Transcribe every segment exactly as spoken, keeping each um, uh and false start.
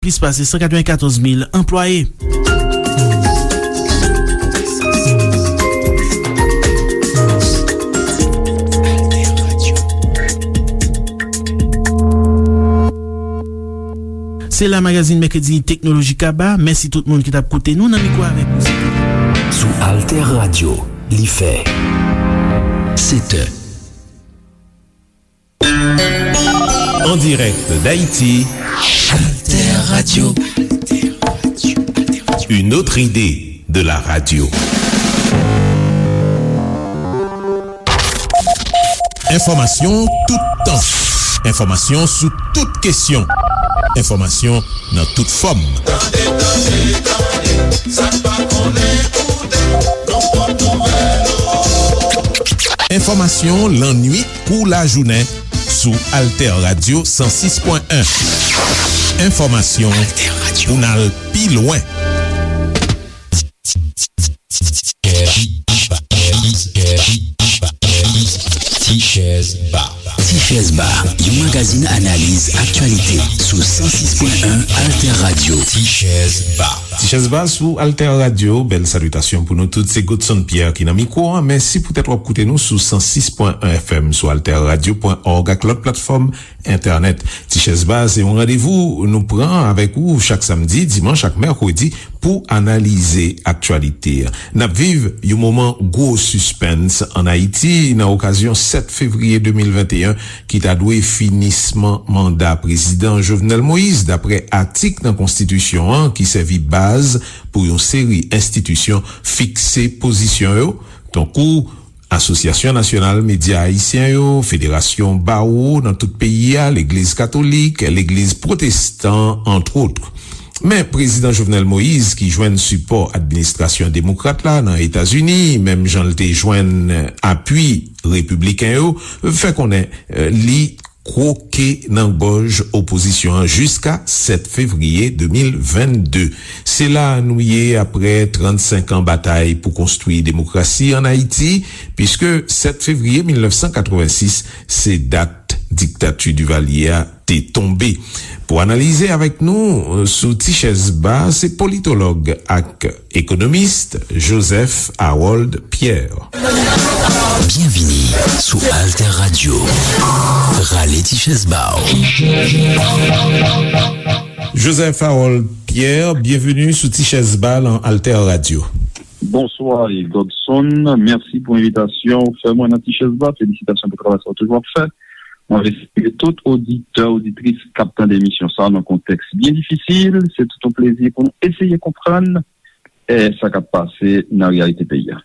plis pase san katrevenkatòz mil anplwaye. Se la magazin Mèkredi Teknoloji Kaba. Mèsi tout moun ki t ap koute nou. Nan mikwo avèk nou se te Sou Alter Radio, li fè sèt è. En direct d'Haïti, Alter Radio. Une autre idée de la radio. Enfòmasyon toutan. Enfòmasyon sou tout kesyon. Enfòmasyon nan tout fòm. Tande, tande, tande, sa n pa konnen koute, nou pot nouvèl ou. Enfòmasyon lannuit kou lajounen sou Alter Radio san sis pwen en. Enfòmasyon pou n al pi lwen. Ti Chèz Ba. Ti Chèz Ba, yon magazin analiz aktyalite sou san sis pwen en Alter Radio. Ti Chèz Ba. Ti Chèz Ba sou Alter Radio, bèl salitasyon pou nou tout. Se Godson Pierre ki nan mikwo a. Mèsi poutèt w ap koute nou sou san sis pwen en F M, sou alter radio pwen org ak lòt platfòm entènèt. Ti Chèz Ba se yon randevou nou pran avèk ou chak samdi, dimanch ak mèkredi pou analize aktyalite a. N ap viv yon moman gwo sispens ann Ayiti nan okazyon sèt fevriye de mil venteyen ki ta dwe finisman manda Prezidan Jovenel Moïse, dapre atik nan Konstitisyon an ki sèvi baz pou yon seri enstitisyon fikse pozisyon yo, tankou Asosyasyon Nasyonal Medya Ayisyen yo, Federasyon Bawo nan tout peyi a, Legliz Katolik, Legliz Pwotestan, antwot. Men Prezidan Jovenel Moïse, ki jwenn sipò administrasyon demokrat la nan Etazini, menm jan l te jwenn apui repibliken yo, fè konnen, eh, li kwoke nan gòj opozisyon an jiska sèt fevriye de mil vennde. Se la nou ye apre trannsenk an batay pou konstwi demokrasi ann Ayiti, piske sèt fevriye mil nèf san katrevensis se dat diktati Divalye a te tonbe. Pou analize avèk nou, euh, sou Ti Chèz Ba, se politològ ak ekonomis Joseph Harold Pierre. Byenvini sou Alter Radio. Rale ti chèz ba w. Joseph Harold Pierre, byenveni sou Ti Chèz Ba nan Alter Radio. Bonswa, Godson. Mèsi pou envitasyon ou fè mwen nan Ti Chèz Ba. Felisitasyon pou travay sa w toujou ap fè. Mwen vle salye tout oditè, oditris k ap tande emisyon sa a nan kontèks byen difisil. Se tout yon plezi pou nou eseye konprann, eh, sa k ap pase nan reyalite peyi a.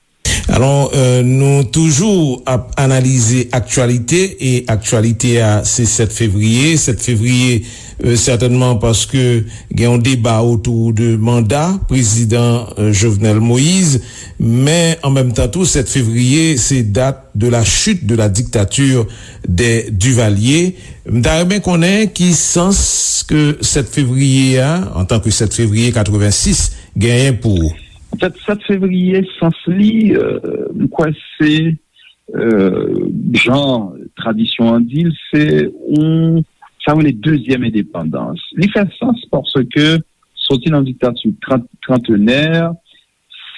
Alò, euh, nou toujou ap analize aktyalite, e aktyalite a, se sèt fevriye. Sèt fevriye, euh, sètènman paske gen yon deba otou de manda prezidan, euh, Jovenel Moïse, men an menm tan tou, sèt fevriye, se dat de la chute de la dictature des Duvalier. M ta renmen konnen ki sans ke sèt fevriye a, antanke sèt fevriye katrevensis, genyen pou ou. An fèt, sèt fevriye, sans li, euh, m kwè se, euh, jan tradisyon an di l, se yon, sa yo rele dezyèm endepandans. Li fè sans paske soti nan diktati trant, trantenè,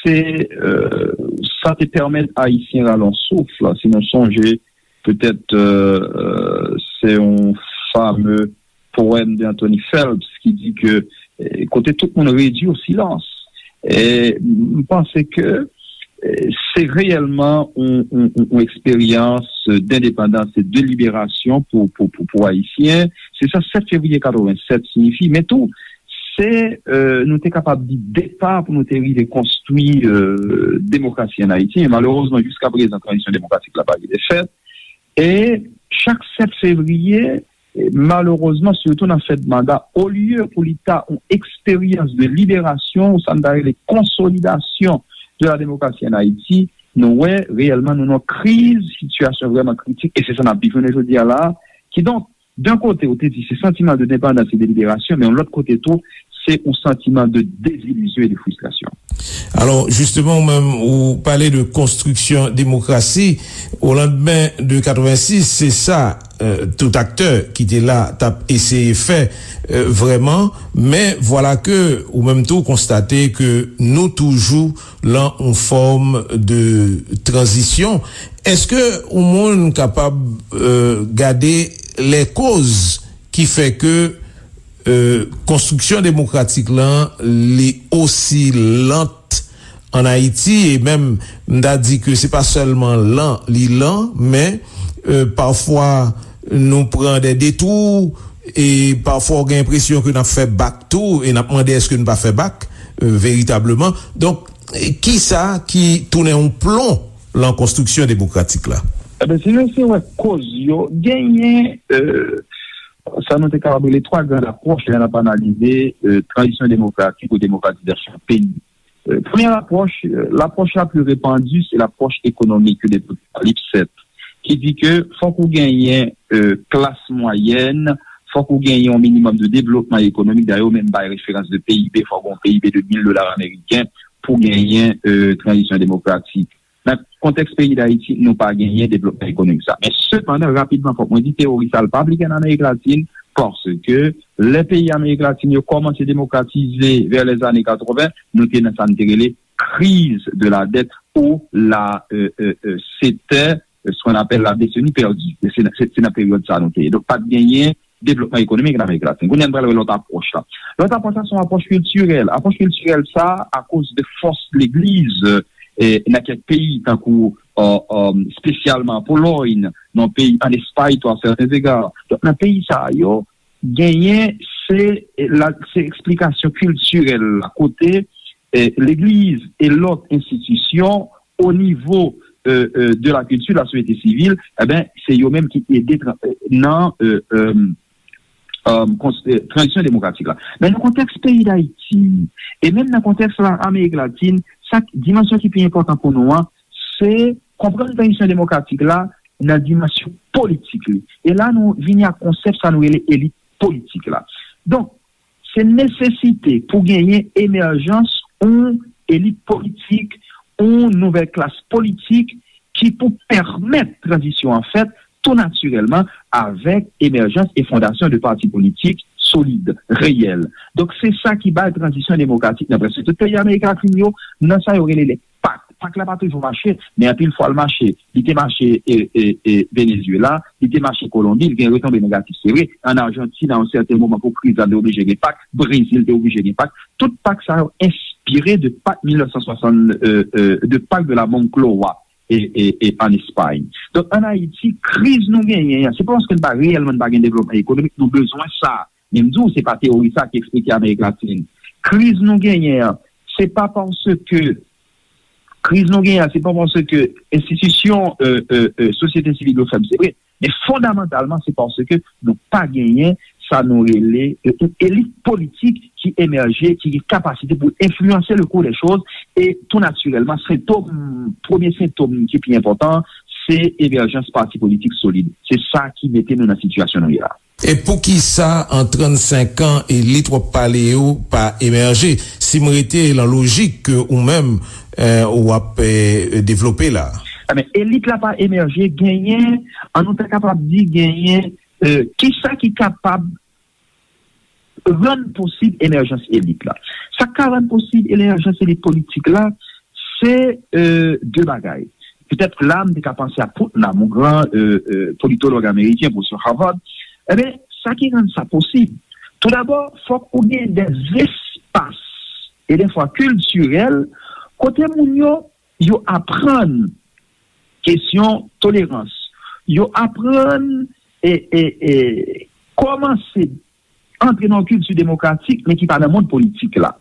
se, euh, sa te pèmèt Ayisyen rale yon souf. Si nou sonje, petèt, euh, euh, se yon fame powèm de Anthony Phelps ki di ke, eh, kote tout moun redui o silans. E m panse ke, eh, se reyèlman yon, yon, yon, yon eksperyans dendepandans e de liberasyon pou, pou, pou, pou Ayisyen. Se sa sèt fevriye katrevennsèt siyifi. Men tou, se, euh, nou te kapab di, depa pou nou te rive konstwi, euh, demokrasi ann Ayiti. Men malerezman, jiska prezan, tranzisyon demokratik la pa rive fèt. E chak sèt fevriye, e malerezman, sitou nan fèt manda, olye pou li ta yon eksperyans de liberasyon, ou sa n ta rele konsolidasyon de la démocratie en Haïti, nou wè reyèlman nou nan kriz, sitiyasyon vrèman kritik, e se sa n ap viv jounen jodi a la. Kidonk, d'un kote, ou te di se santiman de depandans e de liberasyon, men yon lòt kote tou, se yon santiman de dezilizyon e de fristrasyon. Alò, jisteman, ou menm, ou pale de konstriksyon demokrasi. O landmen de katrevensis, se sa, euh, tout aktè ki te la t ap eseye fè, euh, vrèman. Men vwala ke ou menm tou konstate ke nou toujou lan yon fòm de tranzisyon. Èske yon moun kapab, euh, gade lè koz ki fè ke, euh, konstriksyon demokratik lan li osi lant an Ayiti, e menm m ta di ke se pa sèlman lan li lan, men, euh, pafwa nou pran de detou, e pafwa w gen enpresyon ke n ap fè bak tou, e n ap mande èske n pa fè bak, euh, veritableman. Donk, kisa ki tounen yon plon lan konstriksyon demokratik la? Eben, si nou se wè koz yo, genyen, euh, sa nou te kapab rele twa gran apwòch lè n ap analize, euh, tranzisyon demokratik ou demokratizasyon peyi. Euh, premyè apwòch, euh, lapwòch la pli repandi, se lapwòch ekonomik de Docteur Lipset, ki di ke fòk ou genyen, euh, klas mwayèn, fòk ou genyen yon minimòm de devlopman ekonomik. Dayè, yo menm bay referans de P I B, fòk ou gen yon P I B de mil dola ameriken pou genyen, euh, tranzisyon demokratik. Nan kontèks peyi Dayiti, nou pa genyen devlopman ekonomik sa. Men sepandan, rapidman, fòk mwen di, teyori sa l pa aplike an Amerik Latin, paske lè peyi Amerik Latin yo kòmanse demokratize vè lèzane katreven, nou te nan sa n te rele crise de la dette ou la, euh, euh, euh, c'était, euh, ce qu'on appelle la décennie perdue. Se, se, se nan peryòd sa nou te ye. Donk, pa t genyen devlopman ekonomik nan Amerik Latin. Kounye a, n pral wè lòt apwòch la. Lòt apwòch la, se yon apwòch kiltirèl. Apwòch kiltirèl sa, akoz de fòs legliz, e, nan kèk peyi, tankou, e, e, espesyalman Polòy, nan peyi, an Espay tou, a sèten zega. Donk, nan peyi sa yo, genyen, se, la, se eksplikasyon kiltirèl la, kote, e, legliz e lòt enstitisyon, o nivo, e, e, de la kilti, la sosyete sivil, eben, se yo menm ki ede tra-, e, nan, e, e, e, kons-, e, tranzisyon demokratik la. Men nan kontèks peyi Dayiti, e menm nan kontèks la, Amerik Latin, sa k-, dimansyon ki pi enpòtan pou nou an, se konprann tranzisyon demokratik la nan dimansyon politik li. E la, nou vini ak konsèp sa nou rele elit politik la. Donk, se nesesite pou genyen emèjans yon elit politik, yon nouvèl klas politik ki pou pèmèt tranzisyon an fèt tou natirèlman avèk emèjans e fondasyon de pati politik solid, reyèl. Donk, se sa ki bay tranzisyon demokratik nan prèske tout peyi Amerik Latin yo, nan sa yo rele lè pak. Pak la pa toujou mache, men anpil fwa l mache. Li te mache, e, e, e, Venezuela, li te mache Kolonbi, li gen retonbe negatif, se vre. Ann Ajantin, a yon sèten moman, pou kriz la, te oblije gen pak. Brezil te oblije gen pak. Tout pak sa yo enspire de pak mil nèf san swasann, e, e, de pak de la Moncloa, e, e, e, an Espay. Donk, ann Ayiti, kriz nou genyen an, se pa paske n pa reyèlman n pa gen devlopman ekonomik, nou bezwen sa. Men m di w, se pa teyori sa ki eksplike Amerik Latin. Kriz nou genyen an, se pa paske, kriz nou genyen an, se pa paske enstitisyon, e, e, e, sosyete sivil yo fèb, se vre. Men fondamantalman, se paske nou pa genyen sa nou rele, e, yon elit politik ki emèje, ki gen kapasite pou enfliyanse le cours des choses. E tou natirèlman, sentòm, premye sentòm ki pi enpòtan, se emèjans pati politik solid. Se sa ki mete nou nan sitiyasyon nou ye la. E poukisa an trannsenk an elit w ap pale yo pa emèje? Si m rete lan lojik ke ou menm, e, w ap, e, devlope la. Ebyen, elit la pa emèje, genyen, an nou ta kapab di, genyen, e, kisa ki kapab rann posib emèjans elit la? Sa k ka rann posib emèjans elit politik la, se, e, de bagay. Petèt la, m te ka panse a Putnam, yon gran, e, e, politològ ameriken, pwofesè Harvard. Ebyen, sa ki rann sa posib, toudabò, fòk ou gen dè espas, e dèfwa kiltirèl, kote moun yo, yo aprann kesyon tolerans. Yo aprann, e, e, e, kòmanse antre nan yon kilti demokratik, men ki pa nan mond politik la.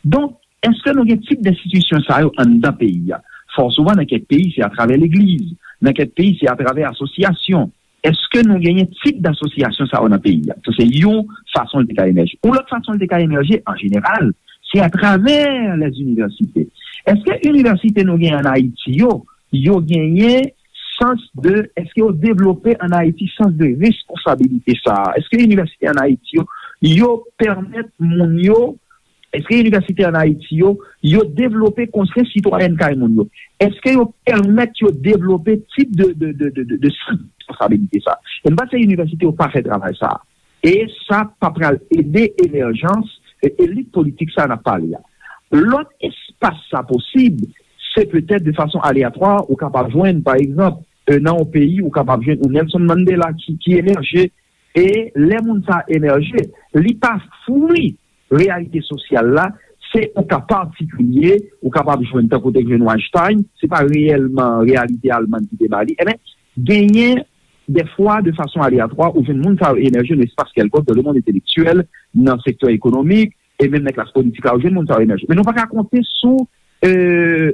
Donk, èske nou gen tip enstitisyon sa yo anndan peyi a? Fò souvan, nan kèk peyi, se atravè legliz. Nan kèk peyi, se atravè asosyasyon. Èske nou genyen tip asosyasyon sa yo nan peyi a? Sa, se yon fason l te ka emèje. Yon lòt fason l te ka emèje, an jeneral, se atravè lèzinivèsite. Èske inivèsite nou genyen ann Ayiti yo, yo genyen sans de, èske yo devlope ann Ayiti sans de responsabilité sa a? Èske inivèsite ann Ayiti yo, yo pèmèt moun yo Èske inivèsite ann Ayiti yo, yo devlope konsyans sitwayèn kay moun yo? Èske yo pèmèt yo devlope tip de, de, de, de, de, de sans de responsabilite sa? E m panse inivèsite yo pa fè travay sa a. E sa pa pral ede emèjans e elit politik sa a n ap pale a. Lòt espas sa posib, se petèt de fason aleyatwa, ou kapab jwenn, pa egzanp, e, nan yon peyi, ou kapab jwenn yon Nelson Mandela ki, ki emèje, e lè moun sa a emèje, li pa fwi reyalite sosyal la, se yon ka patikilye, ou kapab jwenn tankou te jwenn Weinstein, se pa reyèlman reyalite Almann ki te ba li. Ebyen, genyen dèfwa, de fason aleyatwa, ou jwenn moun sa yo emèje nan espas kèlkonk, dans le monde intellectuel, nan sektè ekonomik, e menm nan klas politik la, ou jwenn moun sa yo emèje. Men nou pa ka konte sou, e,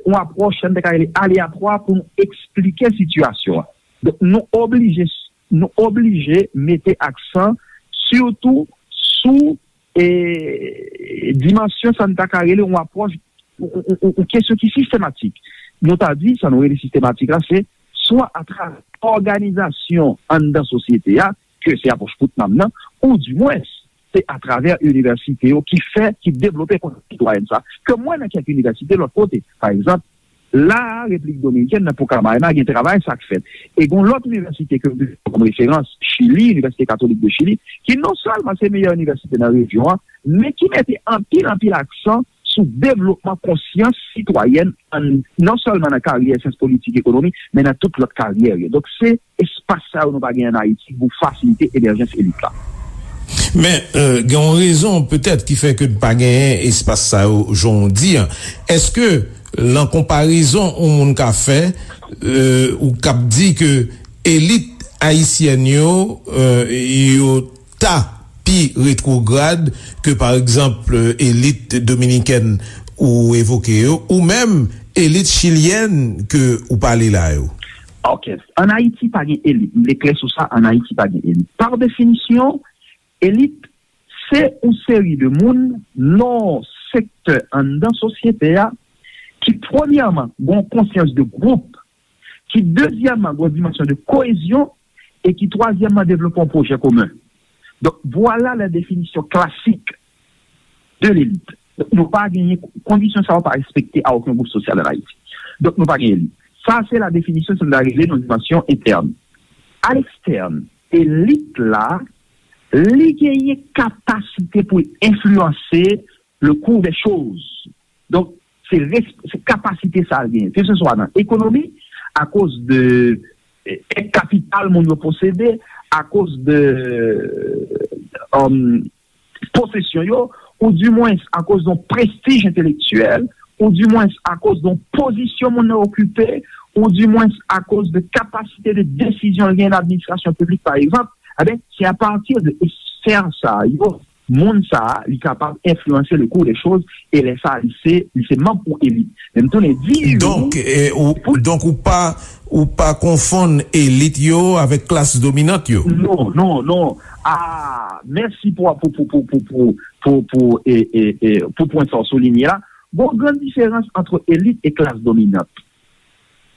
yon apwòch, sa n te ka rele aleyatwa pou nou eksplike sitiyasyon an. Donk, nou oblije, nou oblije mete aksan sitou sou, e, dimansyon sa n ta ka rele yon apwòch, yon, yon, yon, yon kesyon ki sistematik. Nou ta di, sa nou rele sistematik la, se swa atravè òganizasyon anndan sosyete a, ke se apwòch Putnam nan, ou dimwens, se atravè inivèsite yo ki fè, ki devlope konsyans sitwayèn sa, ke m wè nan kèk inivèsite lòt kote. Pa egzanp, la a, Repiblik Dominikèn, nan Pucamaima, gen travay sa k fèt. E gen yon lòt inivèsite ke m pran kòm referans, Chili, Inivèsite Katolik de Chili, ki non sèlman se meyè inivèsite nan rejyon an, men ki mete anpil, anpil aksan sou devlopman konsyans sitwayèn, an, non sèlman nan karyè syans politik, ekonomi, men nan tout lòt karyè yo. Donk, se espas sa yo nou pa gen ann Ayiti pou fasilite emèjans elit la. Men, e, gen yon rezon petèt ki fè ke n pa genyen espas sa yo, jan w di an. Èske, lan konparezon yon moun ka fè, e, ou k ap di ke elit ayisyèn yo, e, yo ta pi retwograd ke, pa egzanp, elit dominikèn ou evoke yo, ou menm elit chilyèn ke ou pale la yo? Ok. Ann Ayiti pa gen elit. M vle klè sou sa, ann Ayiti pa gen elit. Pa definisyon, elit, se yon seri de moun nan sektè anndan sosyete a ki, premyèman, gen yon konsyans de gwoup, ki, dezyèmman, gen yon dimansyon de koyezyon, e ki, twazyèmman, devlope yon pwojè komen. Donk, vwala la definisyon klasik de lelit. Donk, nou pa genyen, kondisyon sa yo pa respekte a okenn gwoup sosyal ann Ayiti. Donk, nou pa gen elit. Sa, se la definisyon sa n ta rele nan dimansyon entèn. A lekstèn, elit la, li genyen kapasite pou l enfliyanse le cours des choses. Donk, se res-, se kapasite sa l genyen, keseswa nan ekonomi, akoz de, eh, kapital moun yo posede, akoz de, um, posesyon yo, ou dimwens akoz de yon prestij entelektyèl, ou dimwens akoz de yon pozisyon moun nan okipe, ou dimwens akoz de kapasite de desizyon l genyen nan administrasyon piblik, pa egzanp, ebyen, se apati de esfè sa yo, moun sa a, li kapab enfliyanse le cours des choses, e lè sa a, li se, li se manm yon elit. Men m tounen di ou, donk, e, ou, pou donk ou pa, ou pa konfonn elit yo avèk klas dominant yo? Non, non, non. Ah, mèsi pou, pou, pou, pou, pou, pou, pou, pou, e, e, e, pou pwen sa w soulinye la. Gon gran diferans ant elit e klas dominant.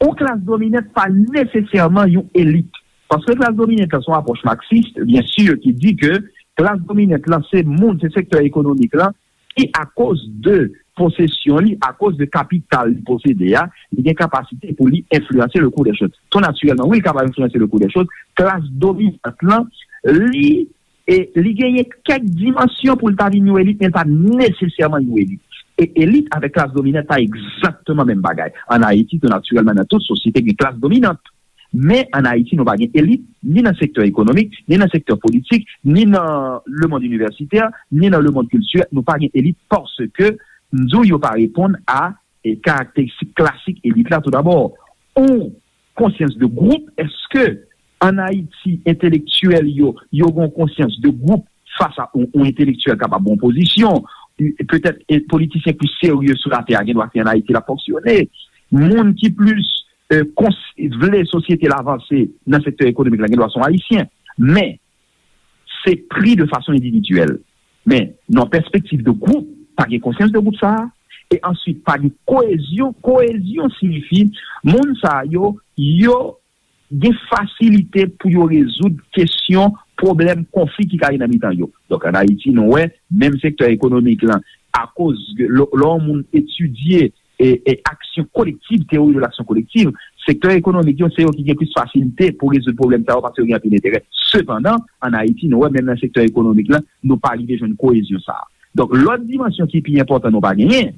Yon klas dominant pa nesesèman yon elit. Paske klas dominant la se yon apwòch maksis, byen si, ki di ke klas dominant la se moun, se sektè ekonomik la, ki akoz de posesyon li, akoz de kapital li posede a, li gen kapasite pou li enfliyanse le cours des choses. Tou natirèlman, wi, li kapab enfliyanse le cours des choses. Klas dominant lan, li, e, li genyen kèk dimansyon pou l ta vin yon elit, men l pa nesesèman yon elit. E elit avèk klas dominant pa egzakteman menm bagay. Ann Ayiti, tou natirèlman, nan tout sosyete, gen klas dominant. Men ann Ayiti, nou pa gen elit, ni nan sektè ekonomik, ni nan sektè politik, ni nan lemonn inivèsitè, ni nan lemonn kiltirèl. Nou pa gen elit paske, m di w, yo pa reponn a, e, karakteristik klasik elit la, toudabò. Yon konsyans de gwoup, èske ann Ayiti, entelektyèl yo, yo gen yon konsyans de gwoup fas a yon, yon entelektyèl kapab gen yon pozisyon, petèt, e, politisyen plis serye sou latè a gen dwa se ann Ayiti l ap fonksyone. Moun ki plis, e, kons-, vle sosyete l avanse nan sektè ekonomik la gen dwa se yon Ayisyen. Men, se pri de fason endividyèl. Men, nan pèspektiv de gwoup, pa gen konsyans de gwoup sa a. E answit, pa gen koyezyon. Koyezyon siyifi, moun sa a yo, yo gen fasilite pou yo rezoud kesyon, pwoblèm, konfli ki ka gen nan mitan yo. Donk, ann Ayiti, nou wè, menm sektè ekonomik lan, akoz lè yon moun etidye e, e aksyon kolektiv, théorie de l'action collective, sektè ekonomik yo, se yo ki gen plis fasilite pou rezoud pwoblèm sa yo paske yo gen anpil enterè. Sepandan, ann Ayiti, nou wè menm nan sektè ekonomik la, nou pa rive jwenn koyezyon sa a. Donk, lòt dimansyon ki pi enpòtan nou pa genyen,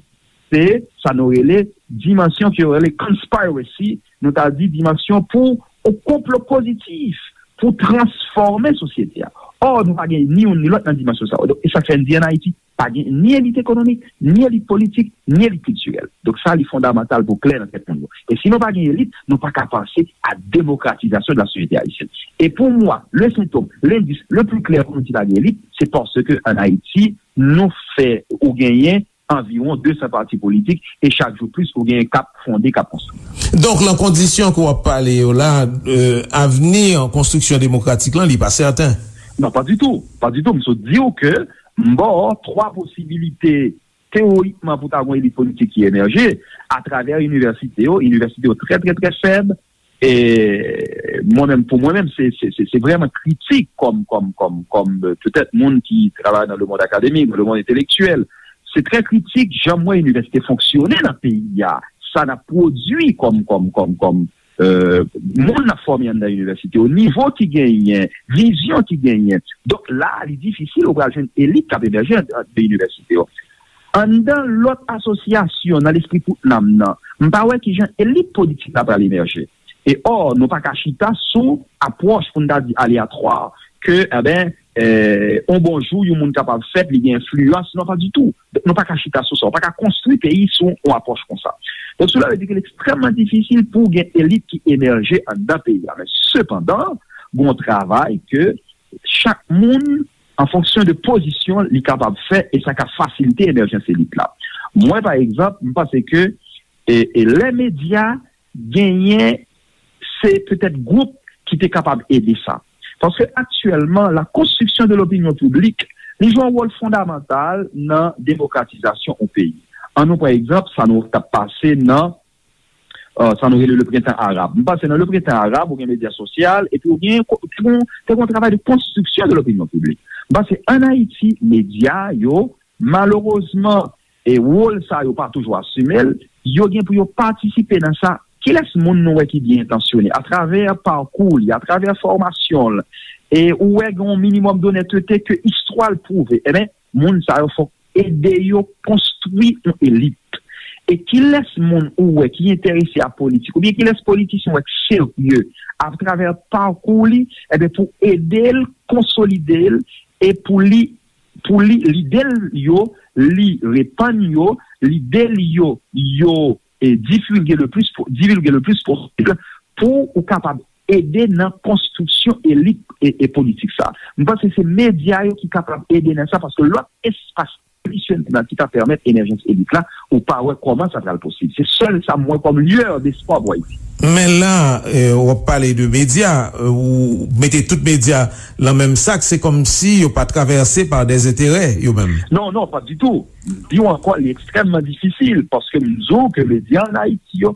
se sa nou rele dimansyon ke yo rele conspiracy, nou ta di dimansyon pou yon konplo pozitif, pou transfòme sosyete a. Ò, nou pa gen ni youn ni lòt nan dimansyon sa yo. Donk, e sa k fè n di ann Ayiti, pa gen ni elit ekonomik, ni elit politik, ni elit kiltirèl. Donk sa, li fondamantal pou klè nan tèt moun yo. E si nou pa gen elit, nou pa ka panse a demokratizasyon de la société haïtienne. E pou mwen, le sentòm, lendis le pli klè pou nou di pa gen elit, se paske ann Ayiti, nou fè ou genyen anviwon de san pati politik e chak jou plis ou genyen k ap fonde, k ap konstwi. Donk, nan kondisyon ke w ap pale yo la, euh, avni konstriksyon demokratik lan, li pa sèten. Non, pa ditou. Pa ditou. M sot di w ke m ba w twa posibilite teorikman pou ta gen yon elit politik ki emèje atravè inivèsite yo. Inivèsite yo trè, trè, trè fèb. E mwen menm, pou mwen menm, se, se, se, se vrèman kritik kòm, kòm, kòm, kòm, euh, petèt moun ki travay nan le monde académique, nan le monde intellectuel. Se trè kritik jan m wè inivèsite fonksyone nan peyi a. Sa n ap pwodui kòm, kòm, kòm, kòm, euh, moun n ap fòme anndan inivèsite yo, nivo ki genyen, vizyon ki genyen. Donk la, li difisil ou pral jwenn elit k ap emèje anndan inivèsite yo. Anndan lòt asosyasyon nan lespri tout nanm nan, m pa wè kijan elit politik la pral emèje. E ò, nou pa ka chita sou apwòch pou n ta di aleyatwa, ke, enben, eh, yon bon jou, yon moun kapab fèt, li gen enfliyans. Non, pa ditou. Nou pa ka chita sou sa. Ou pa ka konstwi peyi sou yon apwòch konsa. Donk, sela vle di ke li ekstrèmman difisil pou gen elit ki emèje anndan peyi a. Men, sepandan, gen yon travay ke chak moun, an fonksyon de pozisyon li kapab fè, e sa ka fasilite emèjans elit la. Mwen, pa egzanp, m panse ke, e, e lè medya genyen, se petèt gwoup ki te kapab ede sa. Paske aktyèlman, la construction de l'opinion publique, li jwe yon wòl fondamantal nan demokratizasyon yon peyi. An nou pran egzanp, sa nou t ap pase nan euh, sa nou rele le printan arab. M panse nan le printan arab, ou gen medya sosyal, epi ou gen, te gen, te gen yon travay de konstriksyon de lopinyon piblik. M panse ann Ayiti, medya yo, malerezman, e wòl sa yo pa toujou asime l, yo gen pou yo patisipe nan sa. Kilès moun nou wè ki byen entansyone atravè pakou li, atravè fòmasyon l, e ou wè gen yon minimòm donètete ke istwa l pwouve? Enben, moun sa yo fòk ede yo konstwi yon elit. E kilès moun ou wè ki enterese a politik, oubyen kilès politisyen ou wè k serye atravè pakou li, enben, pou ede l konsolide l, e pou li, pou li, lide l yo, li repann yo, lide l yo, yo, e, divulge le plus po-, divulge le plus posib, pou ou kapab ede nan konstriksyon elit e, e politik sa. M panse se medya yo ki kapab ede nan sa, paske lòt espas tradisyonèl ki ta pèmèt emèjans elit la, ou pa wè kòman sa pral posib. Se sèl sa m wè kòm lueur d'espoir pou Ayiti. Men la, eh, w ap pale de medya, eh, ou mete tout medya nan menm sak, se kòmsi yo pa travèse pa dè enterè, yo menm. Non, non, pa ditou. M di w ankò, li ekstrèmman difisil, paske m di w ke medya ann Ayiti yo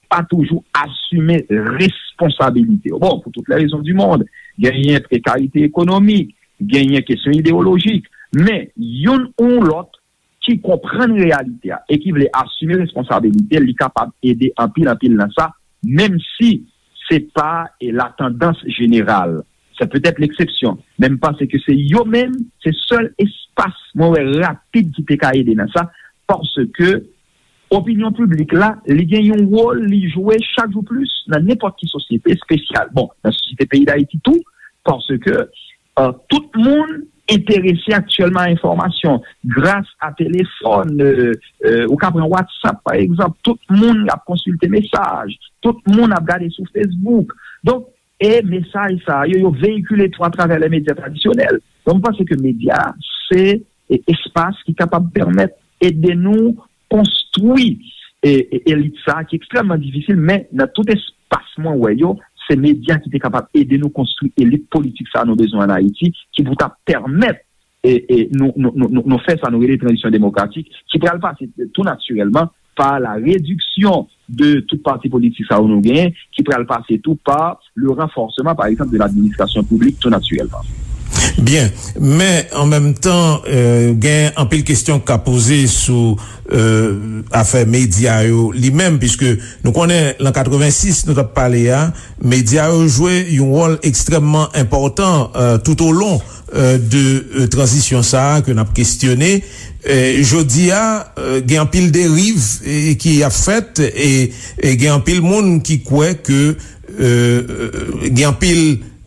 pa toujou asime responsabilite yo. Bon, pour toutes les raisons du monde, genyen prekarite ekonomik, genyen kesyon ideyolojik, men youn ou lòt ki konprann reyalite a e ki vle asime responsabilite l, li kapab ede anpil, anpil nan sa, menm si se pa, e, la tandans jeneral. Se petèt leksepsyon, men m panse ke se yo menm, se sèl espas mwen wè rapid ki te ka ede nan sa, paske opinyon piblik la, li gen yon wòl li jwe chak jou plis nan nenpòt ki sosyete espesyal. Bon, nan sosyete peyi Dayiti tou, paske, euh, tout moun enterese aktyèlman a enfòmasyon. Gras a telefòn, euh, euh, ou ka pran WhatsApp, pa egzanp, tout moun ap konsilte mesaj, tout moun ap gade sou Facebook. Donk, e mesaj sa yo, yo veyikile tou atravè le medya tradisyonèl. Donk, m panse ke medya, se, e, espas ki kapab pèmèt ede nou konstwi, e, e, elit sa a ki ekstrèmman difisil, men nan tout espas mwen wè yo, se medya ki te kapab ede nou konstwi elit politik sa a nou bezwen ann Ayiti, ki pou ta pèmèt, e, e, nou, nou, nou, nou, nou fè sa nou rele tranzisyon demokratik, ki pral pase tou natirèlman pa la rediksyon de tout pati politik sa yo nou genyen, ki pral pase tou pa le renforcement, par exemple, de l'administration publique, tou natirèlman. Byen, men an menm tan, euh, gen anpil kesyon k ka poze sou euh, afè medya yo li menm, piske nou konnen lan katrevensis nou t ap pale a, medya yo jwe yon wòl ekstrèmman enpòtan euh, tout o lon euh, de euh, tranzisyon sa a ke n ap kestyone. Euh, jodi a, euh, gen anpil deriv eh, ki ap fèt e, e gen anpil moun ki kwè ke euh, gen anpil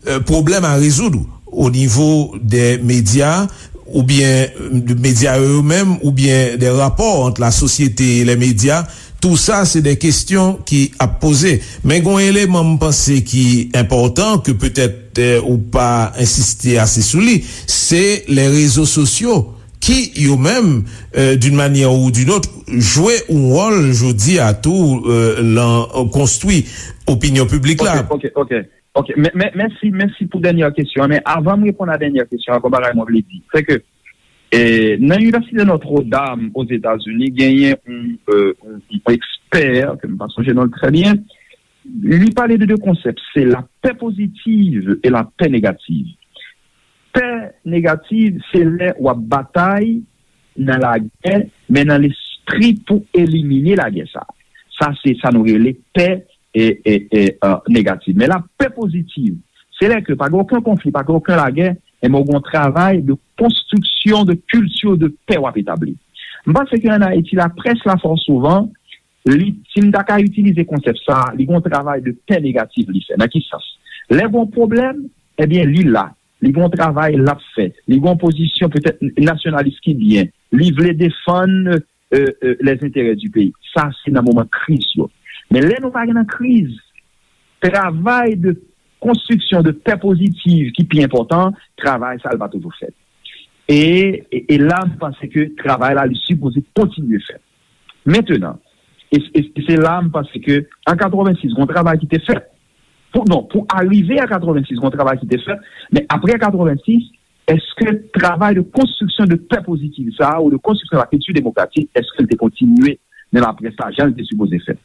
euh, pwoblèm a rezoud o nivo de medya oubyen de medya yo menm oubyen de rapò ant la sosyete e le medya. Tou sa se de kesyon ki ap poze. Men gon eleman m panse ki enpòtan ke petèt euh, ou pa ensiste ase sou li, se le rezo sosyo ki yo menm euh, d'une manière ou d'une autre jwe yon wòl jodi a tou euh, lan konstwi opinyon piblik la. Ok, ok, ok. Ok, men, men, mèsi, mèsi pou dènyè kesyon an. Men avan m reponn a dènyè kesyon an, gon bagay mwen vle di, se ke e, nan Inivèsite Notre Dame Ozetazini, genyen yon, euh, yon, yon ekspè, ke m pa sonje non l trè byen, li pale de de konsèp, se la paix positive et la paix négative. Pè negativ, se lè w ap batay nan lagè, men nan lespri pou elimine lagè sa. Sa se sa nou rele pè e, e, e, uh, negatif. Men la pè pozitiv, se lè ke pa gen okenn konfli, pa gen okenn lagè, enben w gen yon travay de konstriksyon de kilti de pè w ap etabli. M panse ke ann Ayiti, laprès la fò souvan, li, si m ta ka itilize konsèp sa, li gen yon travay de pè negatif li fè. Nan ki sans? Lè gen yon pwoblèm, ebyen li la. Li gen yon travay l ap fè. Li gen yon pozisyon petèt nasyonalis ki byen. Li vle defann euh, euh, les intérêts du pays. Sa se nan moman kriz yo. Men lè nou pa gen nan kriz, travay de konstriksyon de pè pozitiv ki pi enpòtan, travay sa l pa toujou fèt. E, e, e la, m panse ke travay la, li sipoze kontinye fèt. Mentenan, e, e, e se la, m panse ke an katrevensis, gon travay ki te fèt. Pou, non, pou arive a katrevensis, gon travay ki te fèt, men apre katrevensis, èske travay de konstriksyon de pè pozitiv sa a, ou de konstriksyon la kilti demokratik, èske l te kontinye nan laprès la, jan l te sipoze fèt?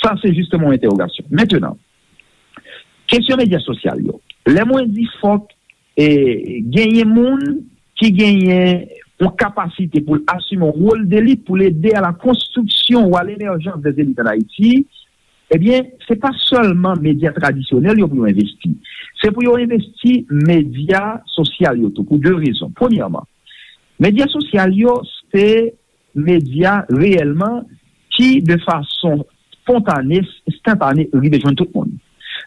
Sa, se jisteman yon entèwogasyon. Mentenan, kesyon medya sosyal yo. Lè mwen di fòk e, genyen moun ki genyen yon kapasite pou l asime yon wòl delit pou l ede a la konstriksyon ou a lemerjans dè elit ann Ayiti, ebyen, se pa sèlman medya tradisyonèl yo pou yo envesti. Se pou yo envesti medya sosyal yo tou, pou de rezon. Premyèman, medya sosyal yo, se medya reyèlman ki, de fason spontane, enstantane, rive jwenn tout moun.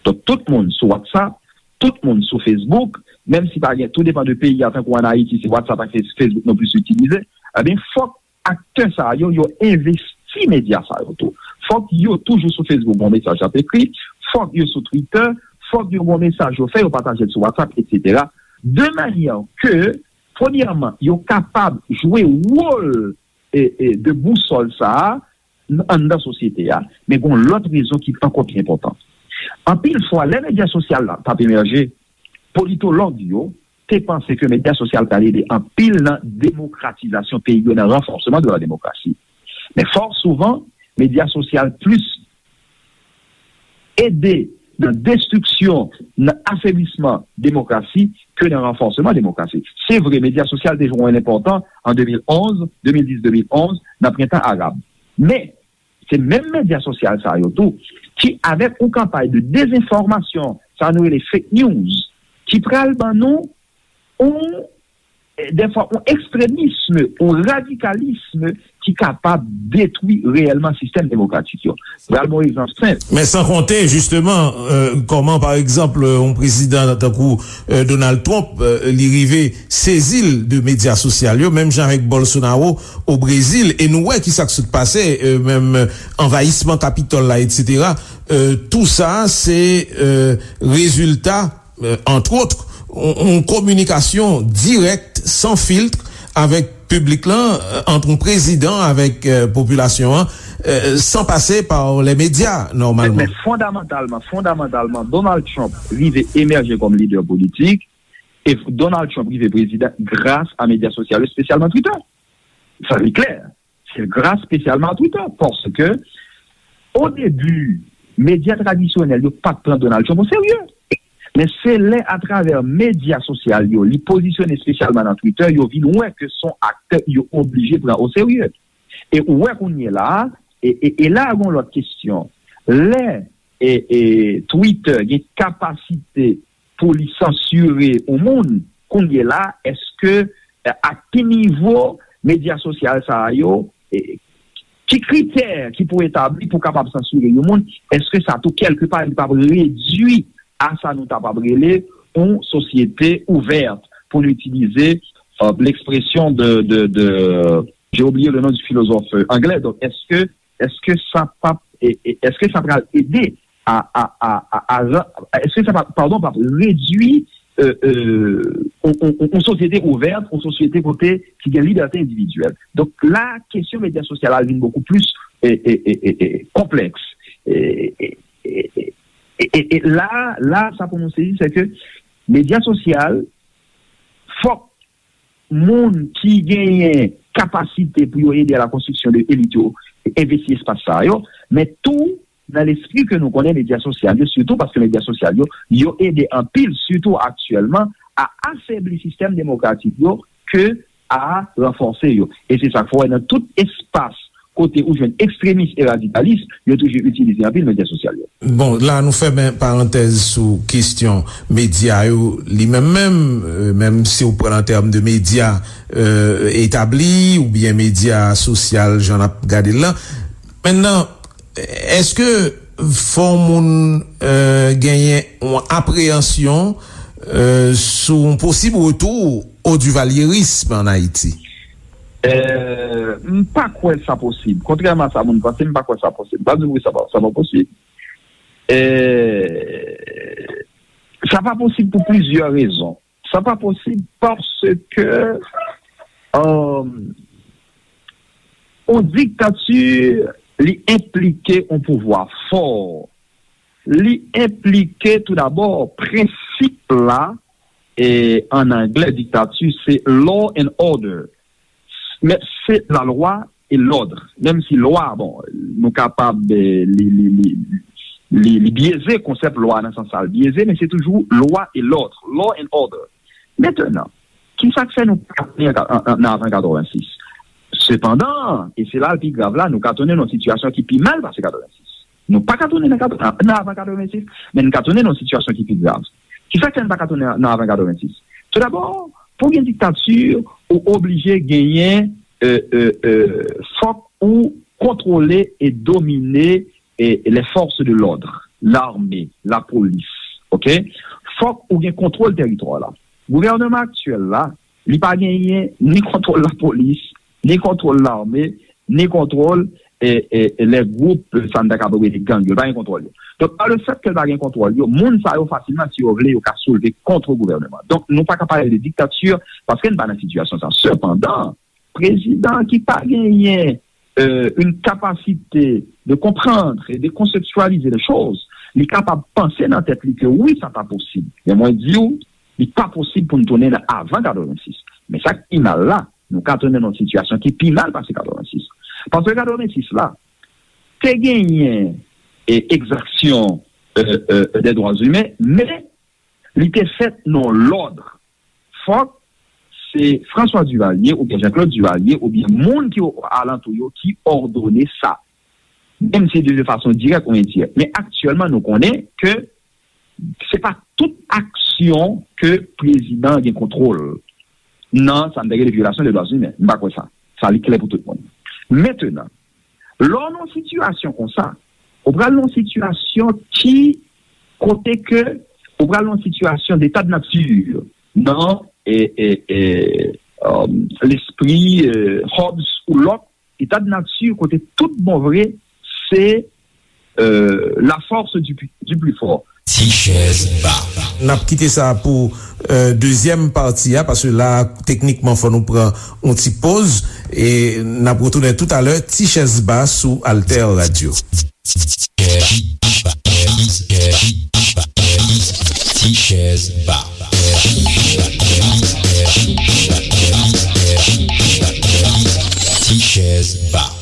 Donk, tout moun sou WhatsApp, tout moun sou Facebook, menm si pa gen, tou depan de peyi a, tankou ann Ayiti, se WhatsApp ak Facebook nou plis itilize, ebyen, fòk aktè sa yo, yo envesti medya sa yo tou. Fòk yo toujou sou Facebook, bon mesaj ap ekri, fòk yo sou Twitter, fòk yo bon mesaj yo fè, yo pataje l sou WhatsApp, etsetera. De manyè ke, premyèman, yo kapab jwe wòl e, e, de bousòl sa a anndan sosyete a, men gen yon lòt rezon ki ankò pi enpòtan. Anpil fwa, lè medya sosyal la t ap emèje, politològ yo te panse ke medya sosyal t al ede anpil nan demokratizasyon peyi yo, nan ranfòsman de la demokrasi. Men fò souvan, medya sosyal plis ede nan destriksyon, nan afeblisman demokrasi ke nan ranfòsman demokrasi. Se vre, medya sosyal te jwe yon wòl enpòtan an de mil onz, de mil dis, de mil onz, nan prentan arab. Men, se menm medya sosyal sa yo tou ki, avèk yon kanpay de dezenfòmasyon, sa nou rele fake news, ki pral ban nou yon dèfwa yon ekstremism, yon radikalism ki kapab detwi reyèlman sistèm demokratik yo. Pral bon egzanp senp. Men san konte, jisteman, euh, kòman, pa egzanp, yon prezidan tankou euh, Donald Trump, euh, li rive sezi l de medya sosyal yo, menm jan avèk Bolsonaro o Brezil, e nou wè ki sa k sot pase, euh, menm anvayisman Kapitòl la, etsetera. Euh, tou sa, se euh, rezilta antwòt, yon kominikasyon dirèk, san filt, avèk piblik lan, ant yon prezidan avèk popilasyon an, san pase pa lè medya, nòmalman. Men fondamantalman, fondamantalman, Donald Trump rive emèje kòm lidè politik, e Donald Trump rive prezidan gras a medya sosyal yo, espesyalman Twitter. Sa li klè. Se gras espesyalman a Twitter, paske o debi, medya tradisyonèl yo pa t pran Donald Trump o serye. Men se lè atravè medya sosyal yo, li pozisyone espesyalman nan Twitter, yo vin wè ke se yon aktè yo oblije pran oserye. E ou wè kounye la a, e, e, e la a gon lòt kesyon. Lè e, e, Twitter gen kapasite pou li sansire yon moun, kounye la, èske, e, a ki nivo medya sosyal sa a yo, e, ki kritè ki pou etabli pou kapab sansire yon moun, èske sa tou kèlkepa li p ap redui a sa nou kapab rele yon sosyete ouvèt, pou nou itilize, e, l'expression de, de, de, j'ai oublié le nom du philosophe, e, anglè, donk, èske, èske sa p ap, e, e, èske sa pral ede a, a, a, a, a ran-, èske sa pa, padon, pa redui, e, e, on, on, on, on sosyete ouvèt, on sosyete kote ki gen libète endividyèl. Donk la, kesyon medya sosyal la vin bokou plis, e, e, e, e, e, konplèks. E, e, e, e, e, e, e la, la, sa pou nou sezi, se ke medya sosyal, fòk moun ki genyen kapasite pou yo ede a la konstriksyon de elit yo envesti espas sa yo, men tou nan lespri ke nou konnen medya sosyal yo, sitou paske medya sosyal yo, yo ede anpil, sitou aktyèlman, a afebli sistèm demokratik yo ke a ranfòse yo. E se sa k fè w wè nan tout espas kote ou jwenn ekstremis e radikalis, yo toujou itilize anpil medya sosyal yo. Bon, la nou fèmen parantèz sou kesyon medya yo li menm menm, e, menm si w pran an tèm de medya, e, etabli oubyen medya sosyal, jan n ap gade l lan. Mentnan, èske fò moun, e, genyen yon apreyansyon, e, sou yon posib retou o divalyerism ann Ayiti? E, m pa kwè sa posib. Kontrèman a sa moun panse, m pa kwè sa posib. M pa di wi, sa pa, sa pa posib. E, sa pa posib pou plizyè rezon. Sa pa posib paske, e, yon diktati, li enplike yon pouvwa fò. Li enplike toudabò prensip la, e, ann anglè, diktati, se law and order. Men se lalwa e lòd. Menm si lwa, bon, nou kapab, e, li, li, li, li, li byeze, konsèp lwa nan sans sa l byeze, men se toujou lwa e lòd, law and order. Mentnan, ki sa k fè nou pa tounen an, an, an, nan avan katrevensis? Sepandan, e se la l pi grav la, nou ka tounen nan yon sitiyasyon ki pi mal pase katrevensis. Nou pa ka tounen nan, nan avan katrevensis, men nou ka tounen nan yon sitiyasyon ki pi grav. Ki sa k fè n pa ka tounen nan avan katrevensis? Toudabò, pou gen diktati, ou oblije genyen, e, e, e, fòk ou kontwole e domine, e, les forces de l'ordre, lame, lapolis, oke? Fòk ou gen kontwòl tèritwa la. Gouvènman aktyèl la, li pa genyen ni kontwòl lapolis, ni kontwòl lame, ni kontwòl, e, e, e, lè gwoup, e, sa n ta kapab rele gang yo, li pa gen kontwòl yo. Donk, pa le fèt ke l pa gen kontwòl yo, moun sa yo fasilman, si yo vle, yo ka soulve kont gouvènman. Donk, nou pa ka pale de diktati paske n pa nan sitiyasyon sa. Sepandan, prezidan ki pa genyen, e, une capacité de comprendre et de conceptualiser les choses, li kapab panse nan tèt li ke wi, sa ta posib. Men mwen di w, li pa posib pou n tounen nan avan katrevensis. Men sa k pi mal la, nou ka tounen nan yon sitiyasyon ki pi mal pase katrevensis. Paske katrevensis la, te genyen, e, egzaksyon, e, e, dè dwa imen, men li te fèt nan lòd. Fòk se François Duvalier oubyen Jean-Claude Duvalier oubyen moun ki alantou yo ki òdone sa. Menm si de fason dirèk ou endirèk. Men aktyèlman, nou konnen ke se pa tout aksyon ke prezidan gen kontwòl nan sa m te rele vyolasyon de dwa imen. M pa kwè sa. Sa li klè pou tout moun. Mentnan, lè w nan yon sitiyasyon konsa, ou pral nan yon sitiyasyon ki, kote ke ou pral nan yon sitiyasyon d'état de nature nan, e, e, e, um, lespri, e, Hobbes ou Locke, état de nature kote tout bon vre se, e, la force du, du plus fort. Ti chèz ba. N ap kite sa pou, e, dezyèm pati a, paske la, teknikman, fò nou pran yon ti poz, e n ap retounen toutalè, Ti chèz ba sou Alter Radio. Ti chèz ba. Ti chèz ba.